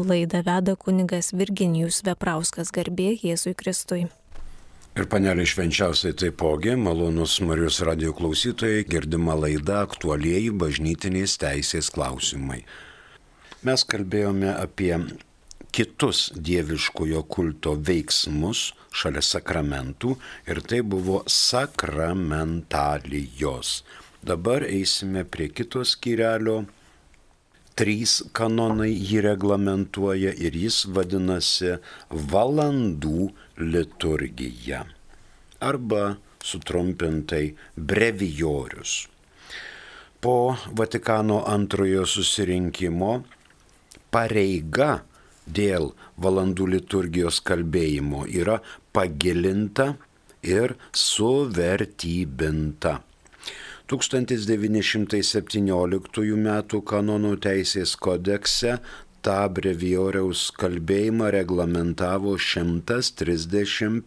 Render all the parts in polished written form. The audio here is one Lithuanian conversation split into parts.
Laidą veda kunigas Virginijus Veprauskas, garbė Jėzui Kristui. Ir panelė švenčiausiai taipogi, malonus Marijos radijo klausytojai, girdima laida aktualieji bažnytinės teisės klausimai. Mes kalbėjome apie kitus dieviškojo kulto veiksmus šalia sakramentų ir tai buvo sakramentalijos. Dabar eisime prie kito skyrelio. 3 kanonai jį reglamentuoja ir jis vadinasi valandų liturgija arba sutrumpintai brevijorius. Po Vatikano antrojo susirinkimo pareiga dėl valandų liturgijos kalbėjimo yra pagilinta ir suvertybinta. 1917 m. kanonų teisės kodekse tą brevijoriaus kalbėjimą reglamentavo 135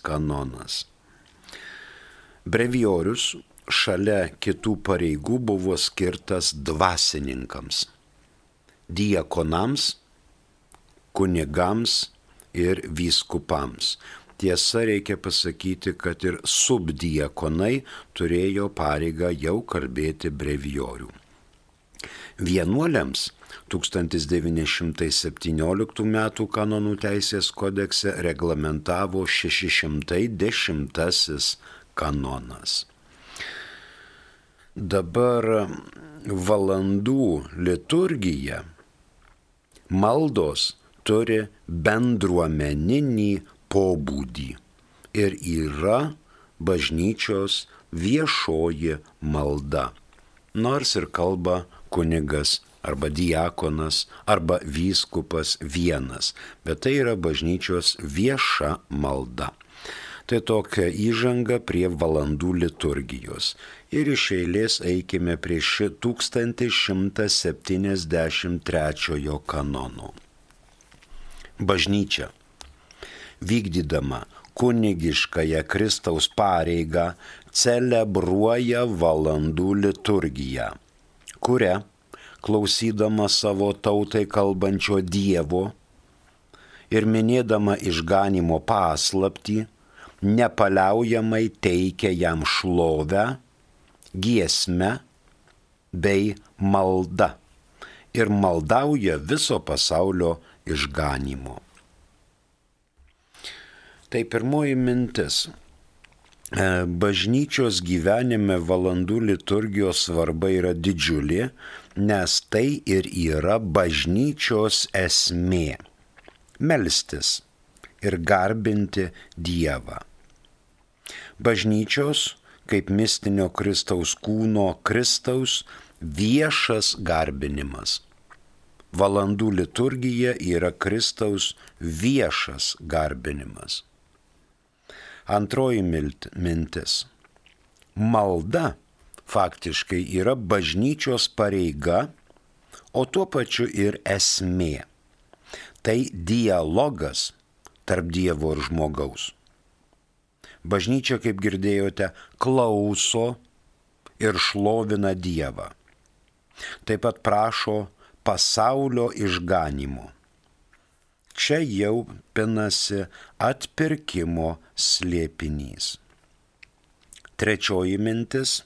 kanonas. Brevijorius šalia kitų pareigų buvo skirtas dvasininkams, diakonams, kunigams ir vyskupams. Tiesa, reikia pasakyti, kad ir subdiakonai turėjo pareigą jau kalbėti brevijorių. Vienuoliams 1917 m. kanonų teisės kodekse reglamentavo 610 kanonas. Dabar valandų liturgija, maldos turi bendruomeninį pobūdį ir yra bažnyčios viešoji malda. Nors ir kalba kunigas arba diakonas arba vyskupas vienas, bet tai yra bažnyčios vieša malda. Tai tokia įžanga prie valandų liturgijos. Ir iš eilės eikime prie 1173 kanono. Bažnyčia, vykdydama kunigiškąją Kristaus pareigą, celebruoja valandų liturgiją, kuria, klausydama savo tautai kalbančio Dievo ir minėdama išganymo paslaptį, nepaliaujamai teikia jam šlovę, giesmę bei maldą ir maldauja viso pasaulio išganymo. Tai pirmoji mintis. Bažnyčios gyvenime valandų liturgijos svarba yra didžiulė, nes tai ir yra bažnyčios esmė – melstis ir garbinti Dievą. Bažnyčios, kaip mistinio Kristaus kūno Kristaus, viešas garbinimas. Valandų liturgija yra Kristaus viešas garbinimas. Antroji mintis. Malda faktiškai yra bažnyčios pareiga, o tuo pačiu ir esmė. Tai dialogas tarp Dievo ir žmogaus. Bažnyčia, kaip girdėjote, klauso ir šlovina Dievą. Taip pat prašo pasaulio išganymo. Čia jau pinasi atpirkimo slėpinys. Trečioji mintis.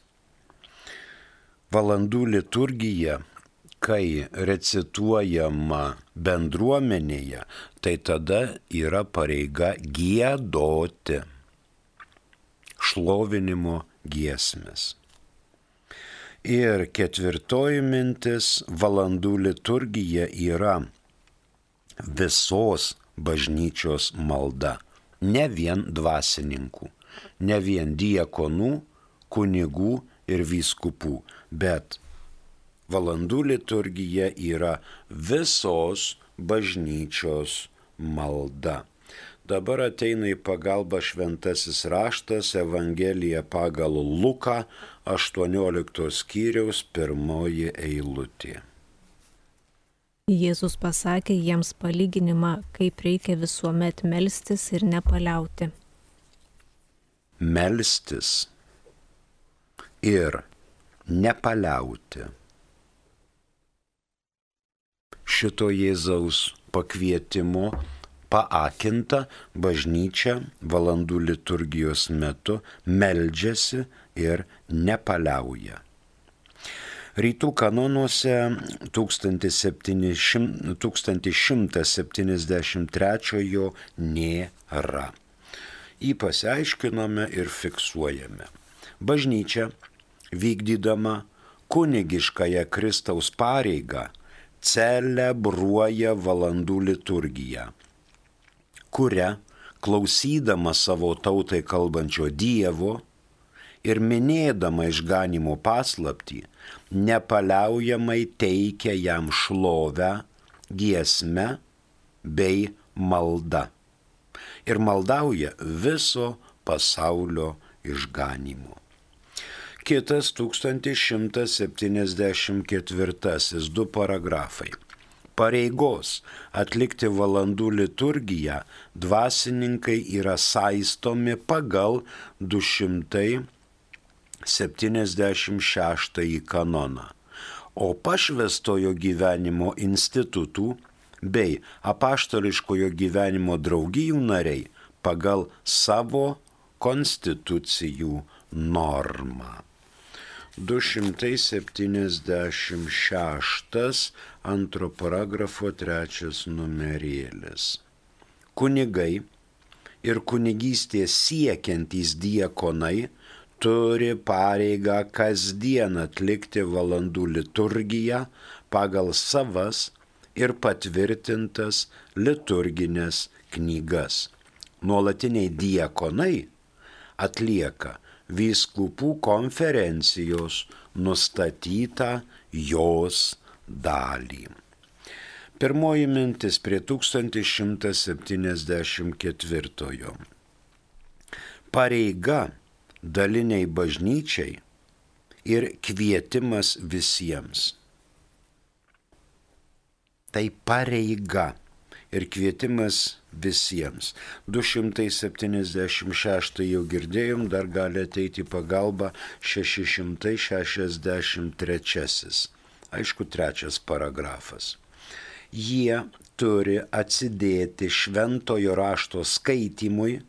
Valandų liturgija, kai recituojama bendruomenėje, tai tada yra pareiga giedoti šlovinimo giesmes. Ir ketvirtoji mintis, valandų liturgija yra visos bažnyčios malda, ne vien dvasininkų, ne vien diakonų, kunigų ir vyskupų, bet valandų liturgija yra visos bažnyčios malda. Dabar ateina į pagalbą šventasis raštas, Evangelija pagal Luką, 18 skyriaus 1 eilutė. Jėzus pasakė jiems palyginimą, kaip reikia visuomet melstis ir nepaliauti. Melstis ir nepaliauti. šito Jėzaus pakvietimo paakinta bažnyčia valandų liturgijos metu meldžiasi ir nepaliauja. Rytų kanonuose 1173 nėra. Jį pasiaiškinome ir fiksuojame. Bažnyčia, vykdydama kunigiškąją Kristaus pareigą, celebruoja valandų liturgiją, kuria, klausydama savo tautai kalbančio Dievo ir minėdama išganimo paslaptį, nepaliaujamai teikia jam šlovę, giesme bei malda ir maldauja viso pasaulio išganimo. Kitas 1174, 2 paragrafai. Pareigos atlikti valandų liturgiją dvasininkai yra saistomi pagal 276 kanoną, o pašvęstojo gyvenimo institutų bei apaštališkojo gyvenimo draugijų nariai pagal savo konstitucijų normą. 276, 2 paragrafo 3 numerėlis. Kunigai ir kunigystės siekiantys diakonai turi pareigą kasdien atlikti valandų liturgiją pagal savas ir patvirtintas liturginės knygas. Nuolatiniai diakonai atlieka vyskupų konferencijos nustatytą jos dalį. Pirmoji mintis prie 1174. Pareiga daliniai bažnyčiai ir kvietimas visiems. Tai pareiga ir kvietimas visiems. 276 jau girdėjom, dar gali ateiti pagalba 663. Aišku, 3 paragrafas. Jie turi atsidėti šventojo rašto skaitymui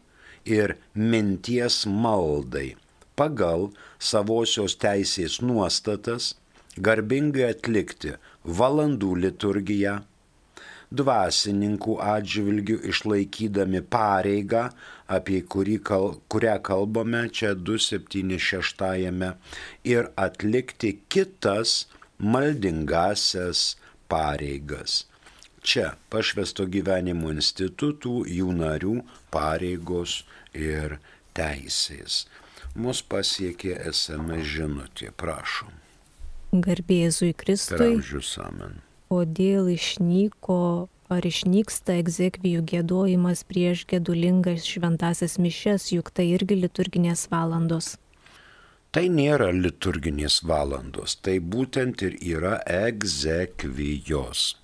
ir minties maldai pagal savosios teisės nuostatas, garbingai atlikti valandų liturgiją, dvasininkų atžvilgių išlaikydami pareigą, apie kurią kalbame čia 276, ir atlikti kitas maldingasias pareigas. Čia pašvęsto gyvenimo institutų, jų narių pareigos ir teisės. Mus pasiekė SMS žinutė, prašom. Garbė Jėzui Kristui. Per amžius amen. Kodėl išnyksta egzekvijų giedojimas prieš gedulingas šventasias mišias, juk tai irgi liturginės valandos? Tai nėra liturginės valandos, tai būtent ir yra egzekvijos.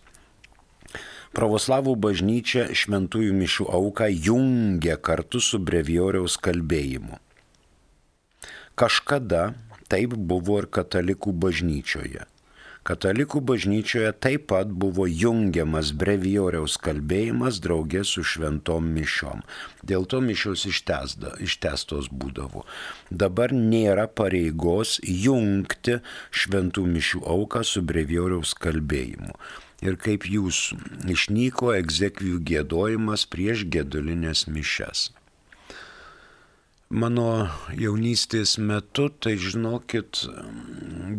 Pravoslavų bažnyčia šventųjų mišių auką jungia kartu su brevijoriaus kalbėjimu. Kažkada taip buvo ir katalikų bažnyčioje. Katalikų bažnyčioje taip pat buvo jungiamas brevijoriaus kalbėjimas draugė su šventom mišiom. Dėl to mišios ištęstos būdavo. Dabar nėra pareigos jungti šventų mišių auką su brevijoriaus kalbėjimu. Ir kaip jūs išnyko egzekvijų giedojimas prieš gedulinės mišias. Mano jaunystės metu, tai žinokit,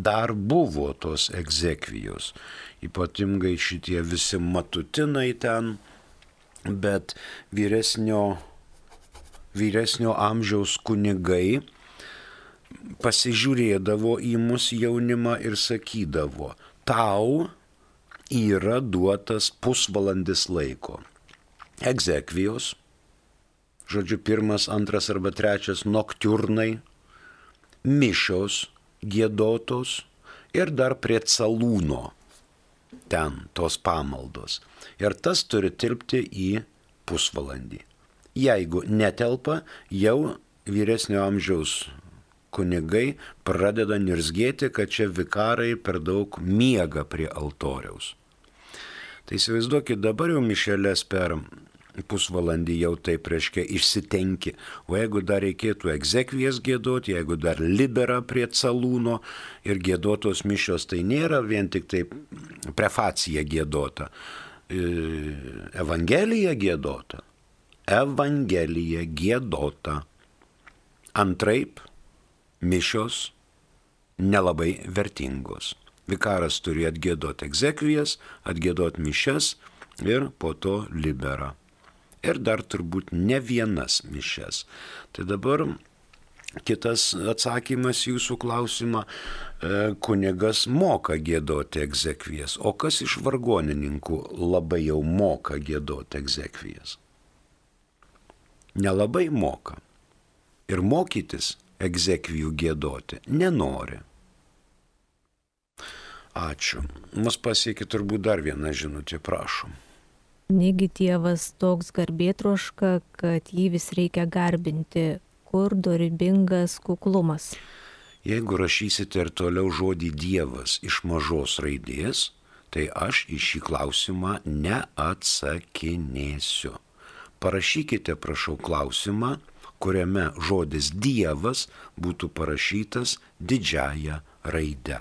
dar buvo tos egzekvijos, ypatingai šitie visi matutinai ten, bet vyresnio amžiaus kunigai pasižiūrėdavo į mus jaunimą ir sakydavo, tau yra duotas pusvalandis laiko. Egzekvijos, žodžiu, 1, 2 arba 3 noktiurnai, mišios giedotos ir dar prie calūno ten tos pamaldos. Ir tas turi tilpti į pusvalandį. Jeigu netelpa, jau vyresnio amžiaus kunigai pradeda nirzgėti, kad čia vikarai per daug miega prie altoriaus. Tai įsivaizduokit, dabar jau mišeles per pusvalandį jau taip reiškia išsitenki, o jeigu dar reikėtų egzekvijas giedoti, jeigu dar libera prie calūno ir giedotos mišios, tai nėra vien tik taip prefacija giedota, evangelija giedota. Evangelija giedota. Antraip, mišios nelabai vertingos. Vikaras turi atgiedoti egzekvijas, atgiedoti mišias ir po to libera. Ir dar turbūt ne vienas mišias. Tai dabar kitas atsakymas jūsų klausimą. Kunigas moka giedoti egzekvijas. O kas iš vargonininkų labai jau moka giedoti egzekvijas? Nelabai moka. Ir mokytis egzekvijų giedoti nenori. Ačiū. Mus pasiekė turbūt dar vieną žinutę, prašom. Negi tėvas toks garbėtroška, kad jį vis reikia garbinti, kur dorybingas kuklumas. Jeigu rašysite ir toliau žodį Dievas iš mažos raidės, tai aš į šį klausimą neatsakinėsiu. Parašykite, prašau, klausimą, kuriame žodis Dievas būtų parašytas didžiąja raide.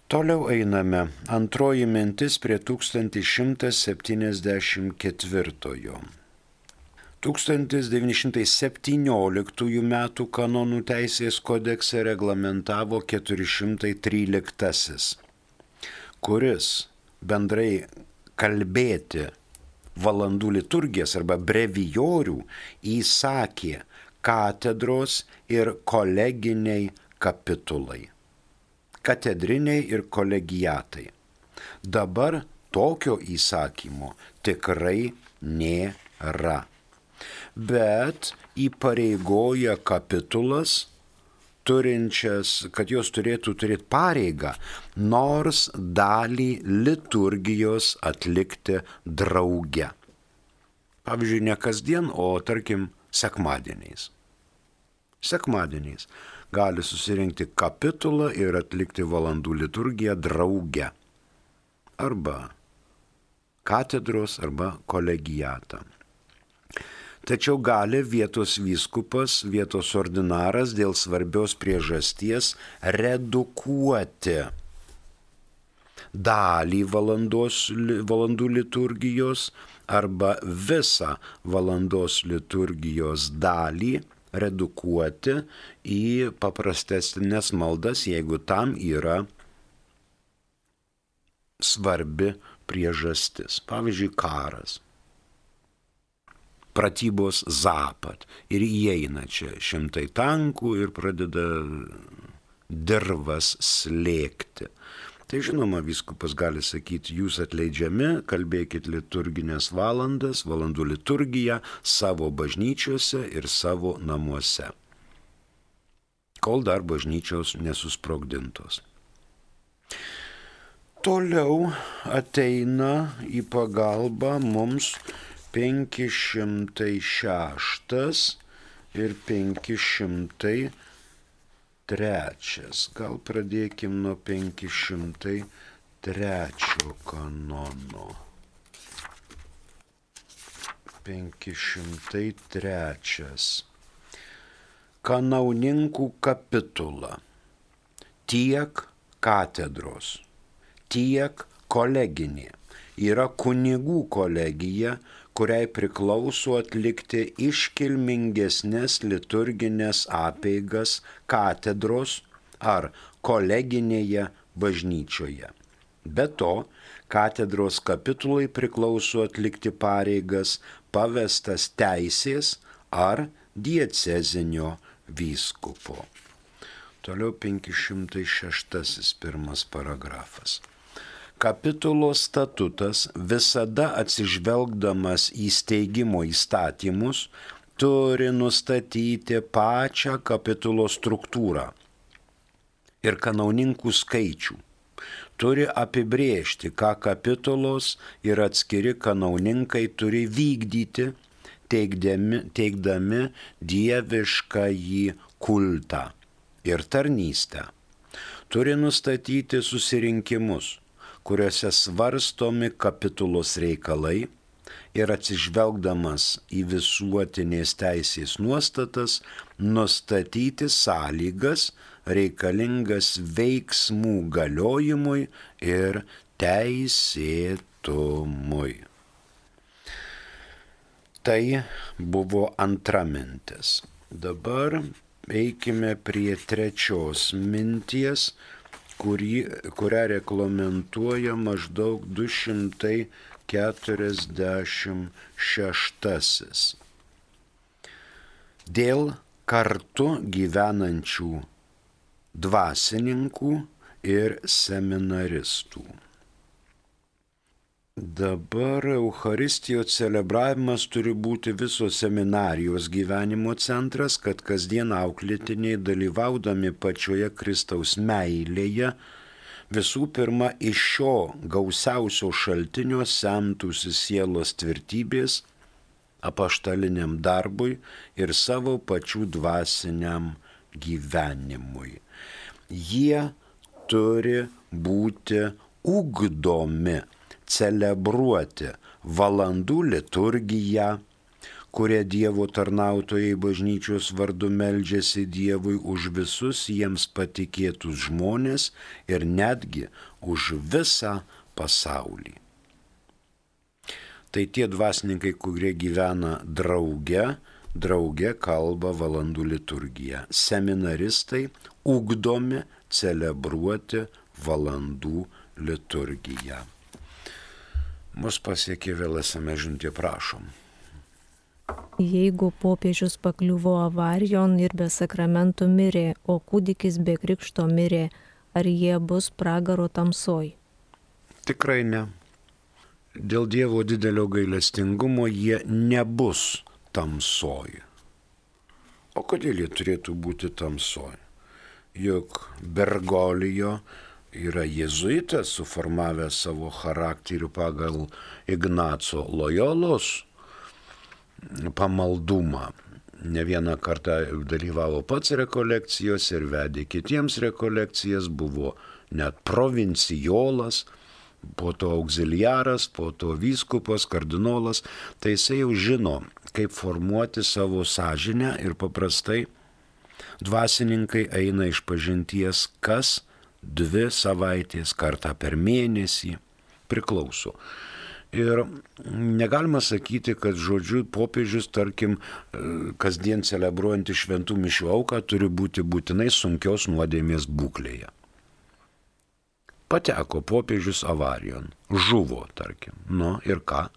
Toliau einame. Antroji mintis prie 1174. 1917 metų kanonų teisės kodekse reglamentavo 413, kuris bendrai kalbėti valandų liturgijas arba brevijorių įsakė katedros ir koleginiai kapitulai. Katedriniai ir kolegiatai. Dabar tokio įsakymo tikrai nėra. Bet įpareigoja kapitulas, kad jos turėtų turėti pareigą, nors dalį liturgijos atlikti drauge. Pavyzdžiui, ne kasdien, o tarkim sekmadieniais. Sekmadieniais gali susirinkti kapitulą ir atlikti valandų liturgiją drauge. Arba katedros, arba kolegiatą. Tačiau gali vietos vyskupas, vietos ordinaras dėl svarbios priežasties redukuoti dalį valandų liturgijos arba visą valandos liturgijos dalį redukuoti į paprastesnės maldas, jeigu tam yra svarbi priežastis. Pavyzdžiui, karas. Pratybos Zapat. Ir įeina čia 100 tankų ir pradeda dirvas slėgti. Tai žinoma, vyskupas gali sakyti, jūs atleidžiami, kalbėkit liturginės valandas, valandų liturgiją savo bažnyčiose ir savo namuose, kol dar bažnyčios nesusprogdintos. Toliau ateina į pagalbą mums 506 ir 503. Gal pradėkim nuo 503 kanono. 503. Kanauninkų kapitula. Tiek katedros, tiek koleginė yra kunigų kolegija, kuriai priklauso atlikti iškilmingesnės liturginės apeigas katedros ar koleginėje bažnyčioje. Be to, katedros kapitulai priklauso atlikti pareigas pavestas teisės ar diecezinio vyskupo. Toliau 506 pirmas paragrafas. Kapitulo statutas visada atsižvelgdamas į steigimo įstatymus turi nustatyti pačią kapitulo struktūrą ir kanauninkų skaičių. Turi apibrėžti, ką kapitulos ir atskiri kanauninkai turi vykdyti, teikdami dieviškąjį kultą ir tarnystę. Turi nustatyti susirinkimus, kuriuose svarstomi kapitulos reikalai ir atsižvelgdamas į visuotinės teisės nuostatas, nustatyti sąlygas reikalingas veiksmų galiojimui ir teisėtumui. Tai buvo antra mintis. Dabar eikime prie trečios minties, kurią reglamentuoja maždaug 246. Dėl kartu gyvenančių dvasininkų ir seminaristų. Dabar Eucharistijos celebravimas turi būti visos seminarijos gyvenimo centras, kad kasdien auklėtiniai dalyvaudami pačioje Kristaus meilėje visų pirma iš šio gausiausio šaltinio semtųsi sielos tvirtybės apaštaliniam darbui ir savo pačių dvasiniam gyvenimui. Jie turi būti ugdomi, celebruoti valandų liturgiją, kurie Dievo tarnautojai bažnyčios vardu meldžiasi Dievui už visus jiems patikėtus žmonės ir netgi už visą pasaulį. Tai tie dvasininkai, kurie gyvena drauge kalba valandų liturgiją. Seminaristai ugdomi celebruoti valandų liturgiją. Mus pasiekė vėl SMS žinutė, prašom. Jeigu popiežius pakliuvo avarijon ir be sakramentų mirė, o kūdikis be krikšto mirė, ar jie bus pragaro tamsoj? Tikrai ne. Dėl Dievo didelio gailestingumo jie nebus tamsoj. O kodėl jie turėtų būti tamsoj? Juk Bergolijo yra jėzuitas, suformavęs savo charakterį pagal Ignaco Lojolos pamaldumą. Ne vieną kartą dalyvavo pats rekolekcijose ir vedė kitiems rekolekcijas, buvo net provincijolas, po to auxiliaras, po to vyskupas, kardinolas. Tai jisai jau žino, kaip formuoti savo sąžinę ir paprastai dvasininkai eina iš pažinties kas 2 savaitės, kartą per mėnesį, priklauso. Ir negalima sakyti, kad žodžiu popiežius, tarkim, kasdien celebruojantį šventų mišių auką turi būti būtinai sunkios nuodėmės būklėje. Pateko popiežius avarijon, žuvo, tarkim, ir ką?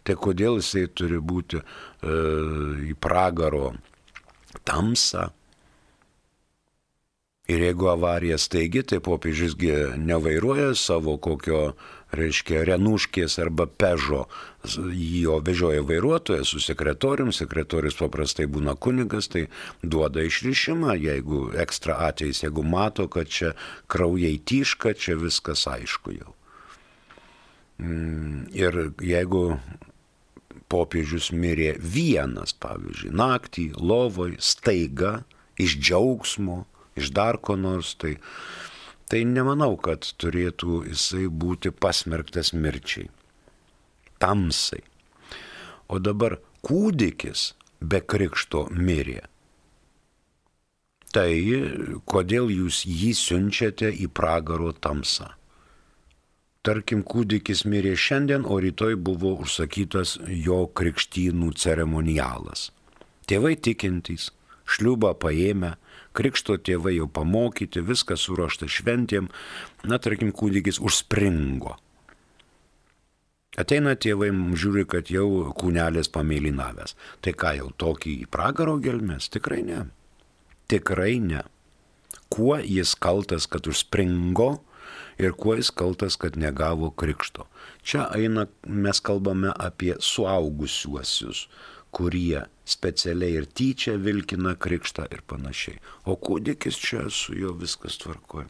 Tai kodėl jisai turi būti į pragaro tamsą? Ir jeigu avarija staigi, tai popiežiusgi nevairuoja savo kokio, Renuškės arba Pežo, jo vežioja vairuotojas su sekretorium, sekretorius paprastai būna kunigas, tai duoda išrišimą, jeigu ekstra atvejais, jeigu mato, kad čia kraujai tyška, čia viskas aišku jau. Ir jeigu popiežius mirė vienas, pavyzdžiui, naktį, lovoj, staiga, iš džiaugsmo, iš dar ko nors, tai nemanau, kad turėtų jisai būti pasmerktas mirčiai, tamsai. O dabar kūdikis be krikšto mirė. Tai kodėl jūs jį siunčiate į pragaro tamsą? Tarkim, kūdikis mirė šiandien, o rytoj buvo užsakytas jo krikštynų ceremonialas. Tėvai tikintys, šliubą paėmę, krikšto tėvai jau pamokyti, viskas suruošta šventėm, tarkim, kūdikis užspringo. Ateina tėvai, žiūri, kad jau kūnelis pamėlynavęs. Tai ką, jau tokį į pragaro gelmes? Tikrai ne. Tikrai ne. Kuo jis kaltas, kad užspringo ir kuo jis kaltas, kad negavo krikšto? Čia mes kalbame apie suaugusiuosius, kurie specialiai ir tyčia vilkina krikštą ir panašiai. O kūdikis čia su juo viskas tvarkoja.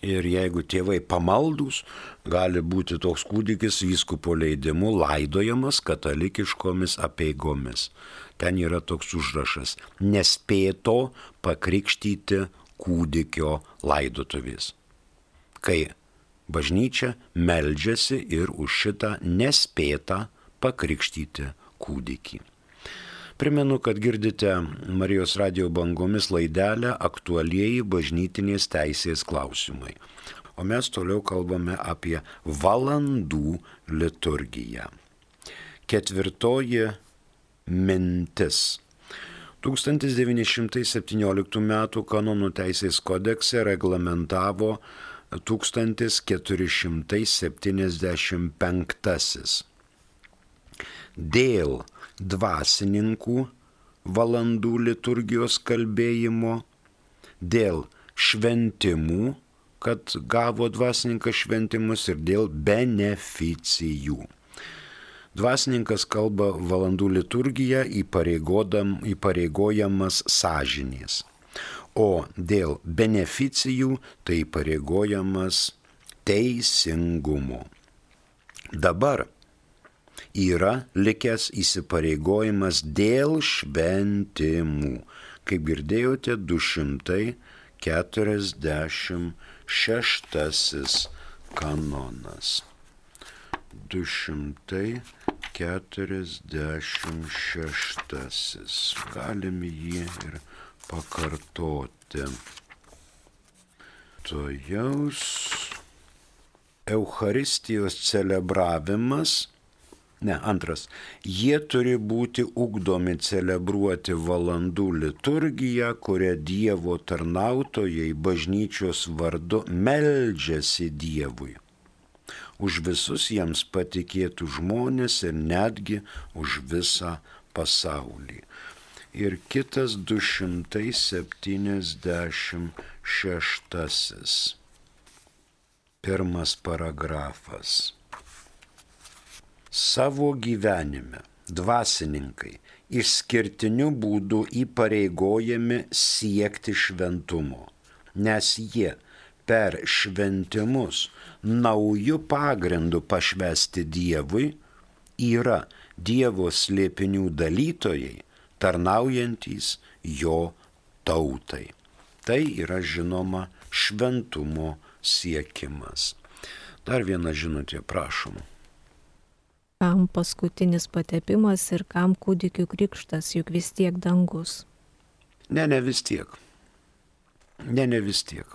Ir jeigu tėvai pamaldus, gali būti toks kūdikis vyskupo leidimu laidojamas katalikiškomis apeigomis. Ten yra toks užrašas: nespėto pakrikštyti kūdikio laidotuvės. Kai Bažnyčia meldžiasi ir už šitą nespėtą pakrikštyti kūdikį. Primenu, kad girdite Marijos radijo bangomis laidelę Aktualieji bažnytinės teisės klausimai. O mes toliau kalbame apie valandų liturgiją. 4 mintis. 1917 m. kanonų teisės kodekse reglamentavo 1475. Dėl dvasininkų valandų liturgijos kalbėjimo, dėl šventimų, kad gavo dvasininkas šventimus, ir dėl beneficijų. Dvasininkas kalba valandų liturgiją įpareigojamas sąžinės, o dėl beneficijų tai įpareigojamas teisingumo. Dabar yra likęs įsipareigojimas dėl šventimų. Kaip girdėjote, 246 kanonas. 246. Galim jį ir pakartoti. Tojaus Eucharistijos celebravimas. Antras. Jie turi būti ugdomi celebruoti valandų liturgiją, kurią Dievo tarnautojai bažnyčios vardu meldžiasi Dievui. Už visus jiems patikėtų žmonės ir netgi už visą pasaulį. Ir kitas 276. Pirmas paragrafas. Savo gyvenime dvasininkai išskirtiniu būdu įpareigojami siekti šventumo, nes jie per šventimus naujų pagrindų pašvęsti Dievui yra Dievo slėpinių dalytojai, tarnaujantys jo tautai. Tai yra žinoma šventumo siekimas. Dar viena žinutė, prašom. Kam paskutinis patepimas ir kam kūdikių krikštas, juk vis tiek dangus? Ne vis tiek. Ne vis tiek.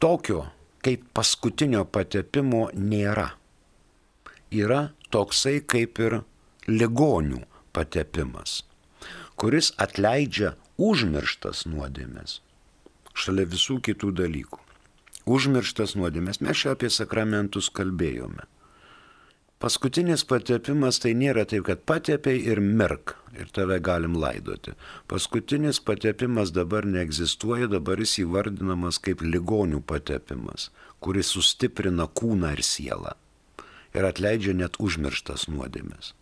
Tokio kaip paskutinio patepimo nėra. Yra toksai kaip ir ligonių patepimas, kuris atleidžia užmirštas nuodėmes, šalia visų kitų dalykų. Užmirštas nuodėmes, mes čia apie sakramentus kalbėjome. Paskutinis patepimas tai nėra taip, kad patepei ir mirk ir tave galim laidoti. Paskutinis patepimas dabar neegzistuoja, dabar jis įvardinamas kaip ligonių patepimas, kuris sustiprina kūną ir sielą ir atleidžia net užmirštas nuodėmes.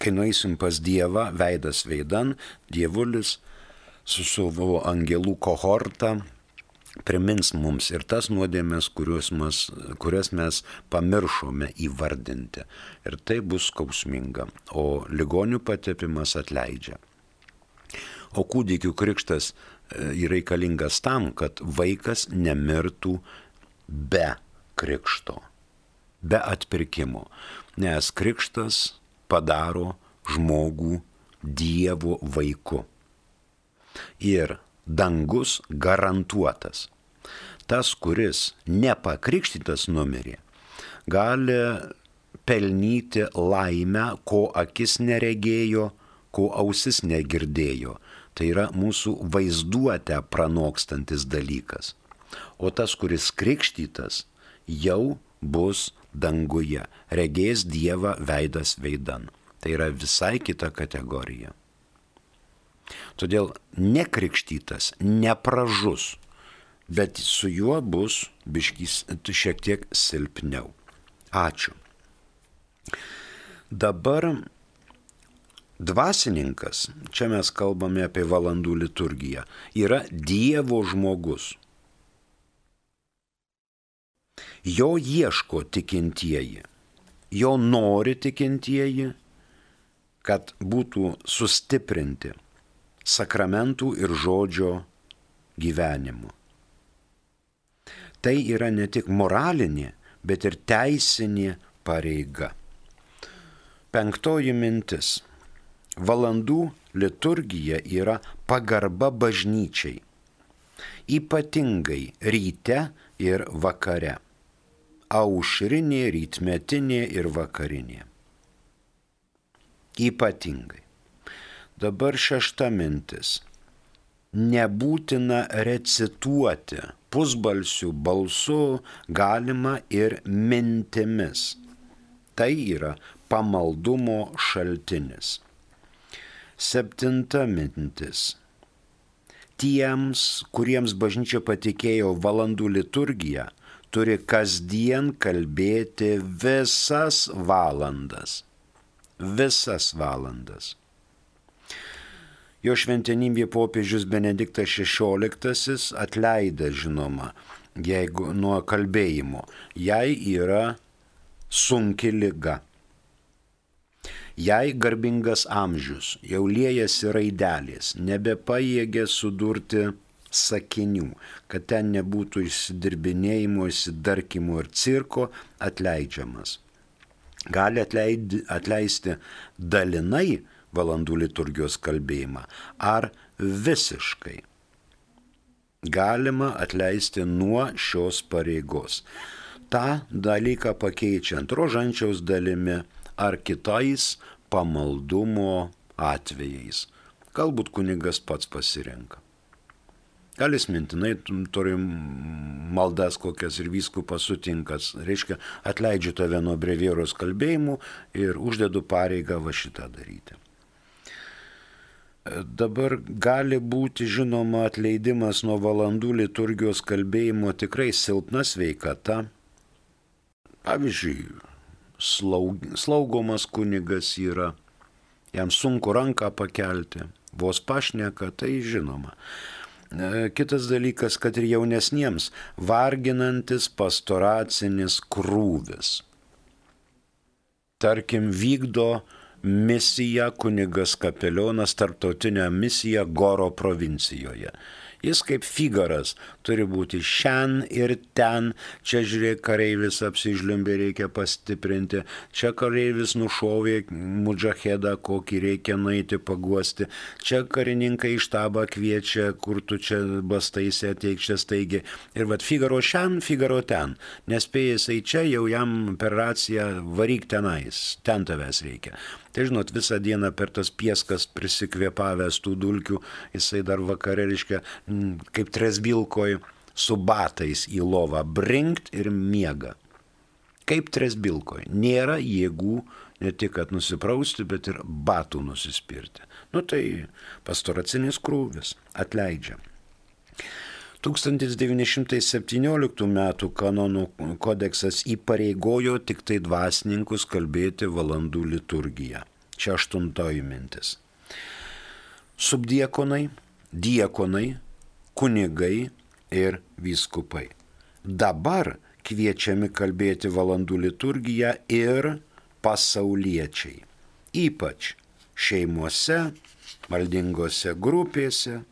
Kai nueisim pas Dievą, veidas veidan, Dievulis su savo angelų kohorta primins mums ir tas nuodėmes, kurias mes pamiršome įvardinti. Ir tai bus skausminga, o ligonių patepimas atleidžia. O kūdikių krikštas yra reikalingas tam, kad vaikas nemirtų be krikšto, be atpirkimo, nes krikštas padaro žmogų Dievo vaiku. Ir dangus garantuotas. Tas, kuris nepakrikštytas numirė, gali pelnyti laimę, ko akis neregėjo, ko ausis negirdėjo. Tai yra mūsų vaizduotę pranokstantis dalykas. O tas, kuris krikštytas, jau bus danguje, regės Dievą veidas veidan. Tai yra visai kita kategorija. Todėl nekrikštytas nepražus, bet su juo bus šiek tiek silpniau. Ačiū. Dabar dvasininkas, čia mes kalbame apie valandų liturgiją, yra Dievo žmogus. Jo ieško tikintieji, jo nori tikintieji, kad būtų sustiprinti sakramentų ir žodžio gyvenimu. Tai yra ne tik moralinė, bet ir teisinė pareiga. 5 mintis. Valandų liturgija yra pagarba bažnyčiai, ypatingai ryte ir vakare, aušrinė, rytmetinė ir vakarinė. Ypatingai. Dabar 6 mintis. Nebūtina recituoti pusbalsių balsu, galima ir mintimis. Tai yra pamaldumo šaltinis. 7 mintis. Tiems, kuriems bažnyčia patikėjo valandų liturgiją, turi kasdien kalbėti visas valandas. Visas valandas. Jo šventenybė popiežius Benediktas XVI atleidė, žinoma, jeigu nuo kalbėjimo, jai yra sunki liga. Jai garbingas amžius, jau liejasi raidelės, nebepajėgė sudurti sakinių, kad ten nebūtų išsidirbinėjimo, išsidarkimo ir cirko, atleidžiamas. Gali atleisti dalinai valandų liturgijos kalbėjimą ar visiškai. Galima atleisti nuo šios pareigos. Ta dalyką pakeičiant rožančiaus dalimi ar kitais pamaldumo atvejais. Galbūt kunigas pats pasirenka. Gal jis mintinai turi maldas kokias ir vyskupas sutinkas. Reiškia, atleidžiu tave nuo brevieros kalbėjimų ir uždedu pareigą va šitą daryti. Dabar gali būti, žinoma, atleidimas nuo valandų liturgijos kalbėjimo tikrai silpna sveikata. Pavyzdžiui, slaugomas kunigas yra, jam sunku ranką pakelti, vos pašneka, tai žinoma. Kitas dalykas, kad ir jaunesniems varginantis pastoracinis krūvis. Tarkim, vykdo misiją kunigas kapelionas, tarptautinę misiją Goro provincijoje. Jis kaip Figaras turi būti šen ir ten, čia žiūrėk, kareivis apsižliumbė, reikia pastiprinti, čia kareivis nušovė mudžahedą, kokį reikia nueiti paguosti, čia karininkai į štabą kviečia, kur tu čia bastaisi, ateik čia staigiai. Ir vat Figaro šen, Figaro ten, nespėjęs į čia, jau jam per raciją varyk tenais, ten tavęs reikia. Tai žinot, visą dieną per tas pieskas prisikvėpavęs tų dulkių, jisai dar vakare, reiškia, kaip tresbilkoj su batais į lovą brinkt ir miega. Kaip tresbilkoj. Nėra jėgų ne tik kad nusiprausti, bet ir batų nusispirti. Nu tai pastoracinis krūvis atleidžia. 1917 metų kanonų kodeksas įpareigojo tik tai dvasininkus kalbėti valandų liturgiją. Čia 8 mintis. Subdiekonai, diekonai, kunigai ir vyskupai. Dabar kviečiami kalbėti valandų liturgiją ir pasauliečiai. Ypač šeimose, maldingose grupėse,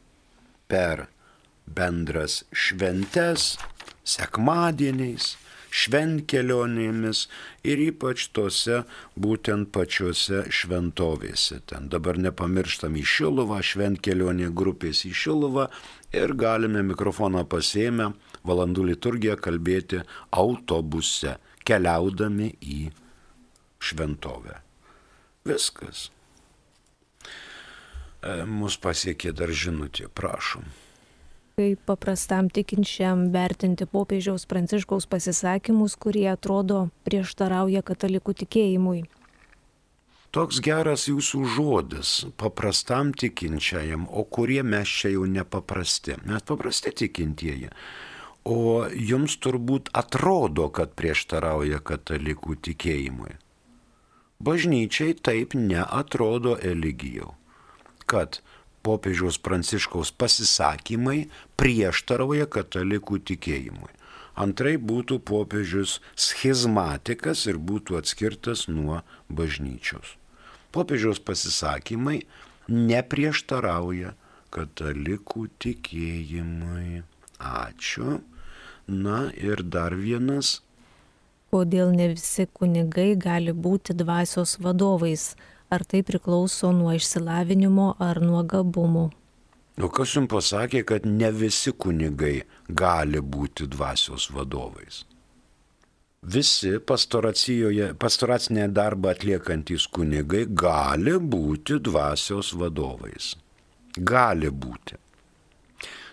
per bendras šventes, sekmadieniais, šventkelionėmis ir ypač tose būtent pačiose šventovėse. Ten dabar nepamirštam į Šiluvą, šventkelionė grupės į Šiluvą ir galime mikrofoną pasiėmę valandų liturgiją kalbėti autobuse, keliaudami į šventovę. Viskas. Mus pasiekė dar žinutė, prašom. Kaip paprastam tikinčiam vertinti popiežiaus Pranciškaus pasisakymus, kurie atrodo prieštarauja katalikų tikėjimui? Toks geras jūsų žodis, paprastam tikinčiajam, o kurie mes čia jau nepaprasti. Mes paprasti tikintieji. O jums turbūt atrodo, kad prieštarauja katalikų tikėjimui. Bažnyčiai taip neatrodo, Eligijau, kad popiežiaus Pranciškaus pasisakymai prieštarauja katalikų tikėjimui. Antrai būtų popiežius schizmatikas ir būtų atskirtas nuo bažnyčios. Popiežiaus pasisakymai neprieštarauja katalikų tikėjimui. Ačiū. Na ir dar vienas. Kodėl ne visi kunigai gali būti dvasios vadovais? Ar tai priklauso nuo išsilavinimo ar nuo gabumų? O kas jums pasakė, kad ne visi kunigai gali būti dvasios vadovais? Visi pastoracinę darbą atliekantys kunigai gali būti dvasios vadovais. Gali būti.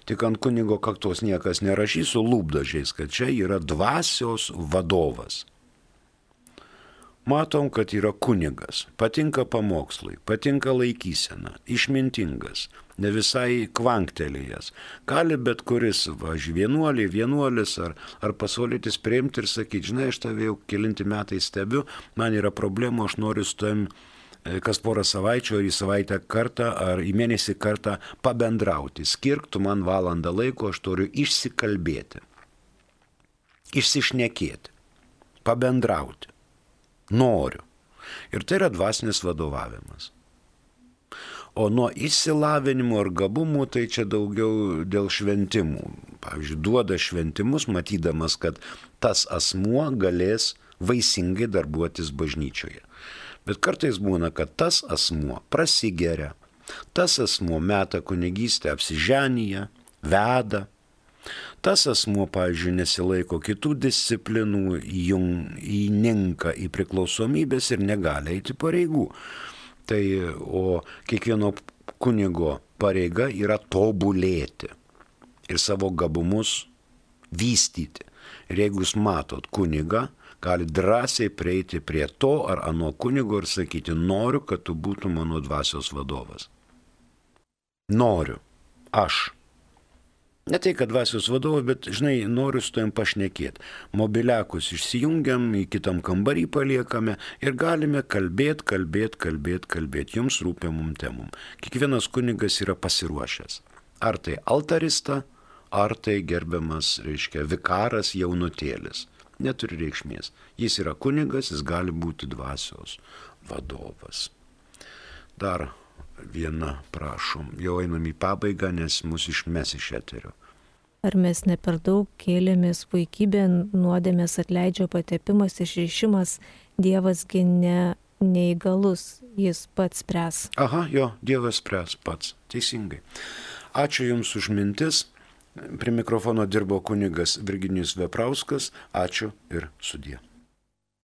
Tik ant kunigo kaktos niekas nerašys su lūpdažiais, kad čia yra dvasios vadovas. Matom, kad yra kunigas, patinka pamokslai, patinka laikysena, išmintingas, ne visai kvanktelėjęs. Gali bet kuris, vienuolis ar pasaulietis priimti ir sakyti, žinai, aš tave jau kelinti metai stebiu, man yra problemų, aš noriu su tavim kas porą savaičių, ar į savaitę kartą, ar į mėnesį kartą pabendrauti. Skirk tu man valandą laiko, aš turiu išsikalbėti, išsišnekėti, pabendrauti. Noriu. Ir tai yra dvasinis vadovavimas. O nuo išsilavinimo ir gabumų tai čia daugiau dėl šventimų. Pavyzdžiui, duoda šventimus, matydamas, kad tas asmuo galės vaisingai darbuotis bažnyčioje. Bet kartais būna, kad tas asmuo prasigeria, tas asmuo meta kunigystę apsiženyje, veda, tas asmuo, pavyzdžiui, nesilaiko kitų disciplinų, įninka į priklausomybės ir negali eiti pareigų. Tai, o kiekvieno kunigo pareiga yra tobulėti ir savo gabumus vystyti. Ir jeigu jūs matot kunigą, gali drąsiai prieiti prie to ar ano kunigo ir sakyti, noriu, kad tu būtum mano dvasios vadovas. Noriu. Aš. Ne tai, kad dvasios vadovas, bet, žinai, noriu su tavim pašnekėti. Mobiliakus išsijungiam, į kitam kambarį paliekame ir galime kalbėti jums rūpimum temum. Kiekvienas kunigas yra pasiruošęs. Ar tai altarista, ar tai gerbiamas, vikaras jaunutėlis. Neturi reikšmės. Jis yra kunigas, jis gali būti dvasios vadovas. Dar viena, prašom. Jau einam į pabaigą, nes mus išmes iš eterio. Ar mes ne per daug kėlėmės puikybė, nuodėmės atleidžia patepimas, išrišimas, Dievasgi neįgalus, jis pats spręs. Aha, jo, Dievas spręs pats. Teisingai. Ačiū Jums už mintis. Prie mikrofono dirbo kunigas Virginijus Veprauskas. Ačiū ir sudie.